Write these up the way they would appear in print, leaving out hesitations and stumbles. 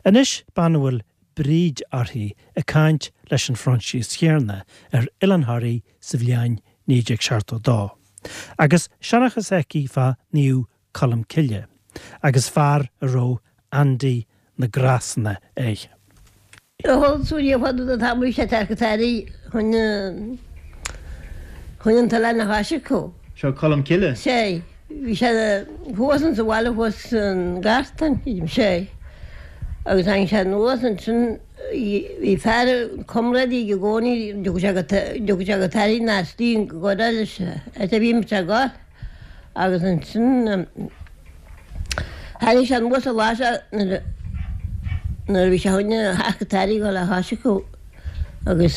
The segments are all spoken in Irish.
Anois bean a bhfuil Bríd uirthi ag caint leis an Phroinsias chéanna ar Oileán Thoraí sa bhliain 1972. Agus seanchas aici fá Naomh Colm Cille agus fear a raibh Andy na gCrosanna air. Thol súil fada do tá sé tar tairí chun chun an t-oileán a thoiseachadh. Seo Colm Cille? Sé. Bhí sé thuas insa bhaile thuas san Gartan, sé. Agus tháinig sé anuas ansin bhí fear comrádaí aige i gcónaí, dtiocfadh sé go dtiocfadh sé go Toraigh ná istigh go leis áit a bhí muid ag gabháil. Agus ansin tháinig sé anuas an lá seo nuair a bhí sé chun a theacht go Toraigh a dhul a thoiseachadh agus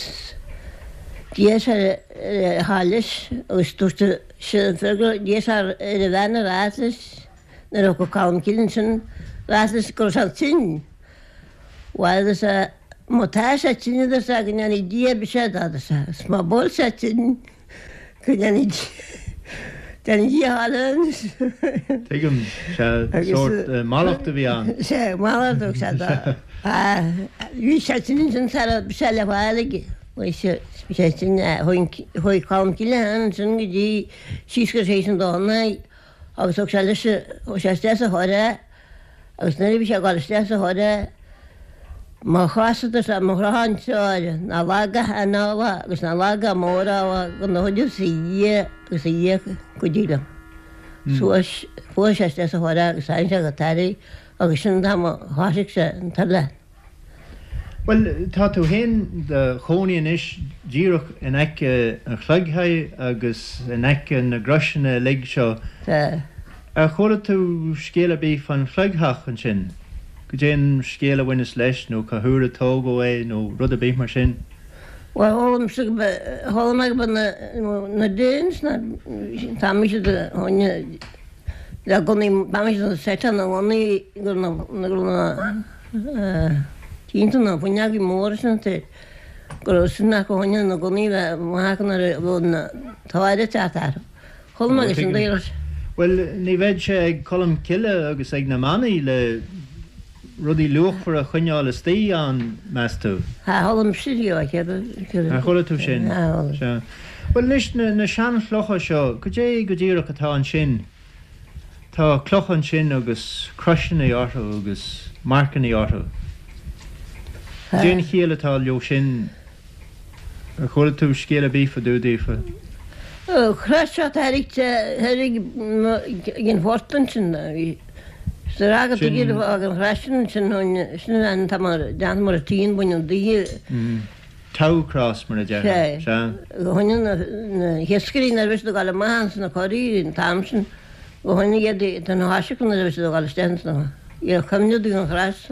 d'iarr sé ar a ghabháil leis agus dúirt sé an fear go d'iarr sé ar a bhean a rá leis nuair a thiocfadh Colm Cille ansin rá leis go raibh sé tinn. Bhuel a deir sé má tá sé tinn a deir sé go ndéanfaidh Dia biseach dó a deir sé agus má bhfuil sé tinn Go ndéanfaidh Dia a thoil anois. Tuigim. Sea, sórt mallacht a bhí ann. Sea, mallacht a thug sé dó. Bhí sé tinn ansin sara raibh sé le fáil aige. Bhí sé tinn, chuaigh Colm Cille ansin go dtí síos go Séis an Domhnaigh agus thug sé leis, chuaigh sé isteach sa charr é Agus nuair a bhí sé ag dul isteach sa charr é, mo chos-sa is mo chrothán treoir, ná lag a anála agus ná lag a mórála go n-uireasa a Dhia agus a Dhia cuidigh liom. Suas, fuair sé isteach sa charr é agus tháinig sé go Toraigh agus sin an t-am a thoisigh sé an t-oileán. Bhuel, tá tú féin do chónaí anois díreach in aice an chloigthigh agus in aice na gcroiseanna uilig seo. Tá. Ar chuala tú scéal ar bith fán chloigtheach ansin? Goidé an scéal a bhaineas leis nó cá huair a tógadh é nó rud ar bith mar sin? Bhuel, chuala mise go mba, chuala mé go mba na, na Danes na, tá mise do choinne le gunnaí, tá mise do seiteáil na ngunnaí go na, go na, Cinnte na fuinneogaí móra sin te go raibh sin acu choinne na gunnaí bheith maith acu nuair a bheadh na táire ag teacht orthu. Chuala mé sin daoras. Bhuel, ní bheadh sé ag Colm Cille agus ag na manaigh le rudaí luachmhara a choinneáil istigh ann, meas tú? Tá, chuala mise riamh é, céard a. Ar chuala tú sin? Tá, chuala. Sea. Bhuel anois, na seanchlocha seo, goidé go díreach atá ansin? Tá clocha ansin agus croiseanna orthu agus marcanna orthu. Cad é an chiall atá leo sin? Ar chuala tú scéal ar bith fá dtaobh daofa? Crois seo thairg ag an phort ansin. Sa rath go dtuigfidh an chrois sin ansin, sin an tá mar déanta mar a tíonn baineann daoithe. Tau cross mar a déarfá. Sea. Choinnigh na hiascairí nuair a bhí siad ag dul amach ins na coraí an t-am sin, go choinnigh iad den thoiseach nuair a bhí siad ag dul isteach ins na, iar cuimhneamh dúinn an chrois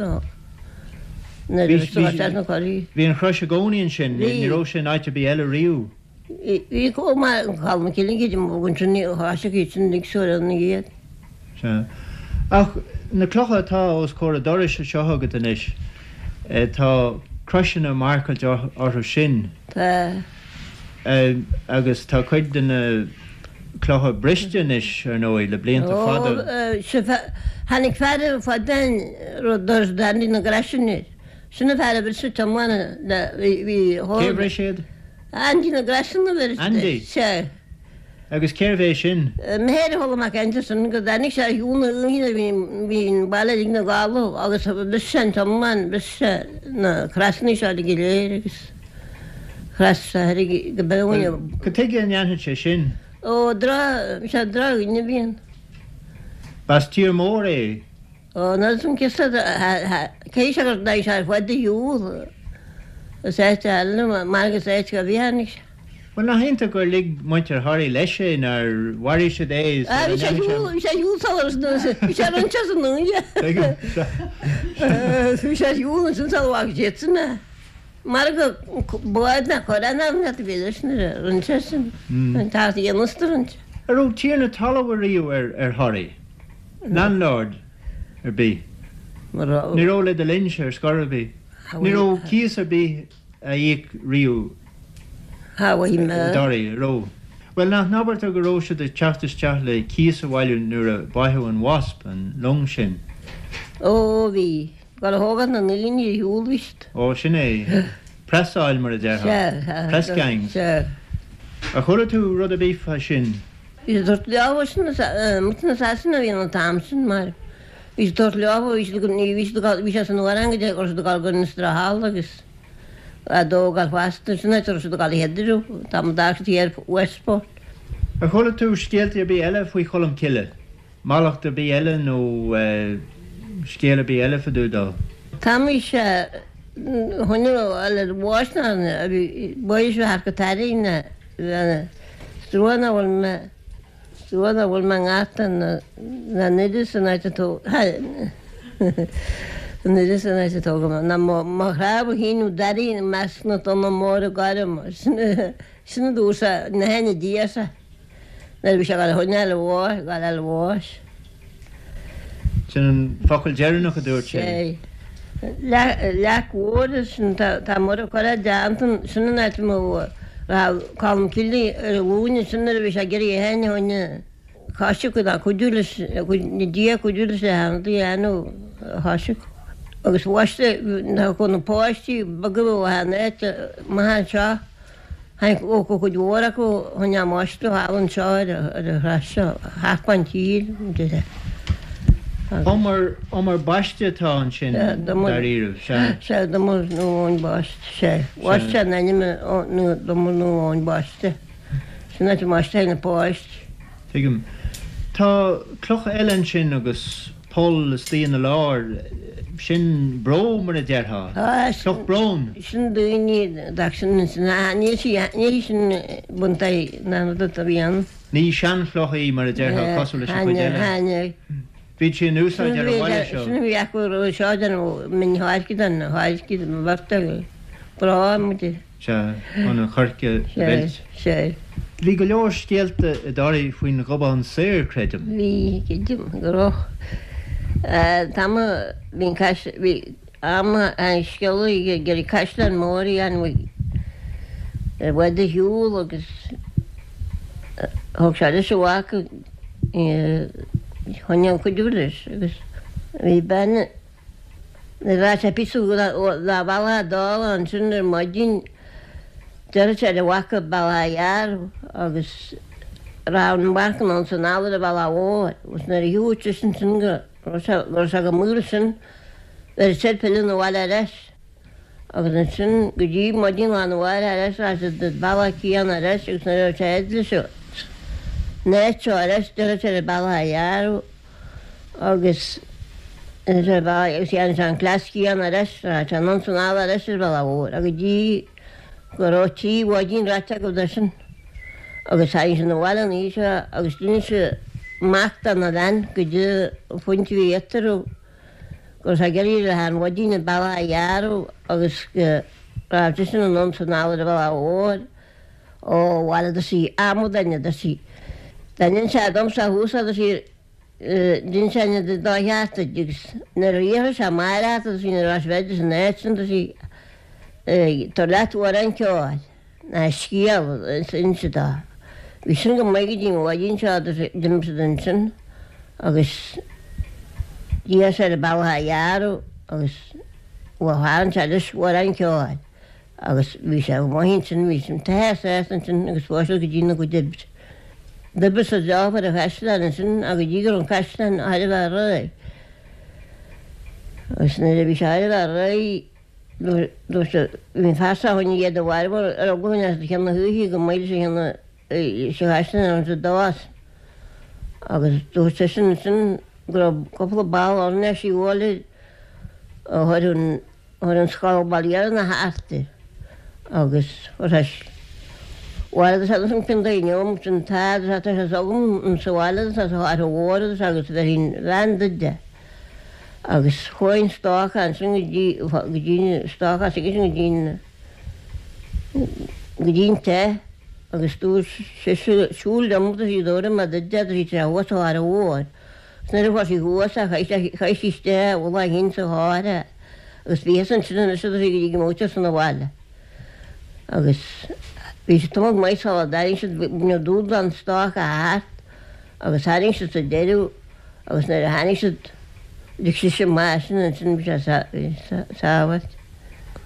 nuair a bhí siad ag dul isteach sna coraí. Bhí an chrois i gcónaí ansin, ní raibh sé in áit ar bith eile riamh. Bhí chomh maith an Colm Cille cid a bhog ansin ní thoiseach iad sin ag súil na iad. Sea. Ach na clocha atá os comhair an dorais anseo agat anois, tá croiseanna marcáilte orthu sin. Tá. Agus tá cuid de na clocha briste anois, ar ndóigh, le blianta fada. Ó, sea, tháinig fear fada rud doras Dandy na gcroiseanna air. Sin an fear a bhris an t-iomlán le, bhí, Cé a bhris iad? Andy na gcroiseanna a bhris. Andy? Sea. Agus cérbh é sin? M'athair a chuala mé ag caint ansin go dtáinig sé ar shiúl na oíche nuair a bhí an baile uilig 'na gcodladh agus bhris sé an t-iomlán, bhris sé na crosanna seo uilig go léir agus chros sé thoir go beo Bhuel, cad tuige a ndéanfadh sé sin? Ó, droch, sea, drochdhuine a bhí ann. B'as tír mór é? Ó, nuair is an ciosta, cé sé gur dhein sé ar fud a shiúl is áit eile mar agus áit go bhí tháinig sé. Bhuel, nach iontach gur lig muintir Thoraí leis é, nár mharaigh siad é sula Bhí sé ar shiúl, bhí sé ar shiúl sula, bhí sé roinnte as an uaine. Bhí sé ar shiúl ansin sula bhfaca siadsan é. Mar go bád ná corrán ann a bhí leis nuair a rinne sé sin, an tart a dhéanamh sa roinnt. An raibh tiarna talaimh ariamh ar Thoraigh? Landlord ar bith? Ní raibh le do linnse ar scor ar bith. Ní raibh cíos ar bith á íoc riamh i dToraigh, an raibh? Bhuel, nach n-abartar go raibh siad ag teacht isteach le cíos a bhailiú nuair a báitheadh an Wasp, an long sin? Ó, bhí. Ag gabháil a thógáil na ndaoine ar shiúl bhí siad. Ó, sin é. Preasáil mar a déarfá. Sea, sea. Press gangs. Sea. Ar chuala tú rud ar bith fá sin? Bhí siad ag tabhairt leo sin, muintir na Sasana a bhí ann an t-am sin mar bhí siad ag tabhairt leo, bhí siad, ní bhí siad ag gabháil, bhí sé san uair an go raibh siad ag gabháil go Innisdoire Thall agus a dtógáil feasta, sin áit a raibh siad ag gabháil a headriú, tá mo d'fhág siad thiar Westport. Ar chuala tú scéalta ar bith eile faoi Cholm Cille? Mallacht ar bith eile nó scéal ar bith eile fá dtaobh dó? Tá mise chun le bháis ná a bhí báis thar go tairbhe na trua ná bhfuil mé trua ná bhfuil mé ngata na na n-oiread san áit a tó an oiread san áit a tógadh mé ná mo mo chnámha féin nó dairí i measc na dtonna móra gorma sin sin a dúirt sé na haithne Dia arsa. Nuair a bhí sé ag gabháil a choinneáil a bháis, ag gabháil a bháis. Sin an focal deireanach a dúirt sé. Sé. Leac mhór sin tá Muire curtha déanta, sin an áit a raibh Colm Cille ar a ghlúine sin nuair a bhí sé ag iarraidh é féin a choinne coisriceadh ná cuidiú leis, na Dia cuidiú leis le hanadaí a dhéanamh a choisriceadh. Agus bhaiste na páistí beaga ó an áit amach anseo. Tháinig ó cuid mhór acu chun a mbaisteadh thall anseo ar an shraith seo, thart fán tír, deir Umar, umar baiste atá ansin dáiríribh, sea. Sea, Umar Naomh Eoin Baiste, sea. Bhaist sé an ainm Umar Naomh Eoin Baiste. Sin áit a mbaisteadh na páistí. Tuigim. Tá cloch eile ansin agus poll istigh ina lár, sin bró mar a déarfá. Cloch bróin. Sin daoine dach sin sin níl sí níl sin buntaí na rud a bhí ann. Ní seanchloch í mar a déarfá cosúil leis an chuid eile. Bhíodh sí in úsáid ar an bhaile seo. Sin a bhí acu roimhe seo den min tháirge den tháirge den bheirt brá muid. Sea, chun an choirce a mheilt. Sea. Bhí go leor scéalta i dToraigh faoin Ghobán Saor, creidim. Bhí, creidim, go raibh. Tá mo, bhí an cais, bhí am an scéalaí ag iarraidh caisleán mór a dhéanamh i bhfad ar shiúl agus thug sé leis a mhac chun cuidiú leis agus bhí bean Nuair a bheadh sé píosa dá bhealach ag dul ansin ar maidin deireadh sé le mhac an bealach a ghearradh agus raibh an mhac anonn 's anall ar an bhealach mhór agus nuair a shiúil seisean sin go raibh sé go raibh sé go maol sin bheireadh sé pilleadh 'na bhaile ar ais agus ansin go dtí maidin lá na mháireach ar ais raibh siad ar bealach céanna ar ais agus nuair a raibh sé fhad leis an áit seo ar ais deireadh sé ar an bealach a ghearradh agus agus dhéanadh sé an cleas céanna ar ais, raghadh sé anonn 's anall ar ais ar an bhealach mhór go dtí go raibh trí mhaidin ráite acu de sin agus tháinig sé 'na bhaile an oíche seo agus d'inis an mac dona bhean goidé an phuint a bhí eatarthu go raibh sé ag iarraidh le an mhaidin an bealach a ghearradh agus go raibh seisean anonn 's anall ar an bhealach mhór Ó, bhail a deir sí, amadáin a deir sí. Dá n-inseadh domsa thuas a deir sí, d'inseoinn an dá cheart duit agus nuair a iarrfaidh sé amárach a deir sí, nuair a bheas bheidís san áit sin a deir sí, tabhair leat amhrán ceoil ná scéal is inse dó. Bhí sin go maith go dtí an mhaidin seo a deir sí, d'imigh siad ansin agus d'iarr sé ar an bealach a ghearradh agus bhuel tharraing sé leis amhrán ceoil. Agus bhí sé go maith ansin, bhí sin tithe sásta ansin agus chuaigh siad go dtí na gcuid oibre. D'oibrigh siad leo ar an chaisleán ansin ach go dtí go raibh an caisleán thar a bheith réidh. Agus nuair a bhí sé thar a bheith réidh, dúirt siad, bhí an fear seo chun iad a mharbhú ar eagla go as cionn na hoíche go mbeidh sé ina sa chaisleán ann sa dás. Agus dúirt seisean ansin go raibh cúpla ball oirnéisí a bhualadh a chuir an Chuir an scoil baile na hArtair agus chuir bhaile agus agus an cionn daoine um sin tá agus tá sé agam an sa bhaile agus sa áit mhór agus agus bheinn bhean duide agus chuaigh an stoc ansin go dtí go dtí an stoc as agus go dtí an go dtí an te agus dúirt sise siúl liom agus í dúirt mé duide agus í sé thuas sa áit mhór. Nuair a fuair sí thuas é, chaith sí isteach a mhullach féin sa charr é agus bhíothas ansin anois agus í go dtí go mbeadh sé san abhaile. Agus bhí sé tamall maith sula dtarraing siad, baineadh dúshlán stoc a thart agus tharraing siad sa deireadh agus nuair a tháinig siad, D'íoc sise amach sin ansin bhí sé sábháilte.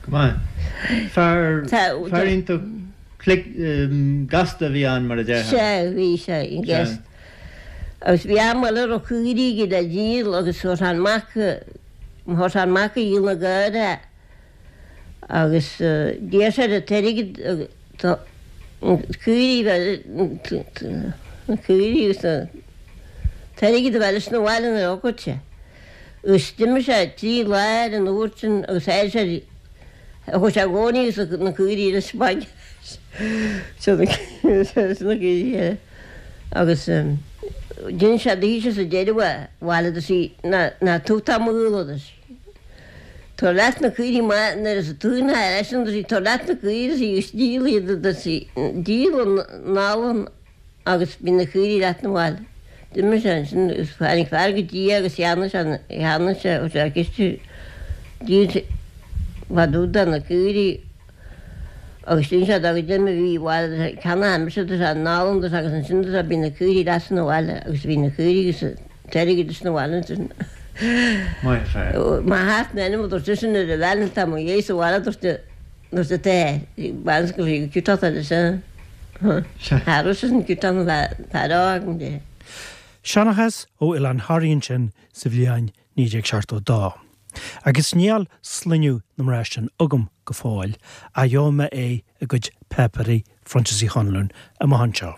Go maith. Fear, fear iontach glic, gasta a bhí ann mar a déarfá. Sea, bhí sé, gasta. Agus bhí am eile a raibh caoirigh aige le díol agus chuir sé an mac, chuir sé an mac a dhíol na gcaor agus d'iarr sé an t-airgead caoirigh na caoirigh agus an t-airgead a bheith leis 'na bhaile nuair a thiocfadh sé. Agus d'imigh sé 3 lá ar an uair sin agus tháinig sé chuaigh sé i gcónaí agus na caoirigh leis bainne na caoirigh eile agus d'inis sé daoithe sa deireadh a bhaile do sí ná tugtar mo ghuala duit. Tabhair leat na caoirigh maith nuair is tú ina ar eisean do sí tabhair leat na caoirigh do sí agus díol iad do sí díol an anlann agus bhí na caoirigh leat 'na bhaile. D'imigh sé ansin agus tháinig fear go dtí é agus cheannaigh sé cheannaigh sé chuir sé ciste díol sé fá dtaobh de na caoirigh agus d'inis sé dó goidé mar bhí bhaile do sé ceannaigh mise do sé an anlann do sé agus ansin do sé bhí na caoirigh leat 'na bhaile agus bhí na caoirigh agus T-airgead leis 'na bhaile ansin. Maith an fear. Má theacht in ainm a dúirt seisean nuair a bhean tá mo dhéidh sa bhaile dúirt dúirt an t-athair bean go bhí ciútach leis an Cha raibh seisean ciútach na fear agam de. Seanchas ó Oileán Thoraí ansin sa bhliain 1972. Agus níl sloinneadh na mná sin agam go fóill, ach gheobhaidh mé é i gcuid páipéirí Phroinsias Uí Chonluain amach anseo.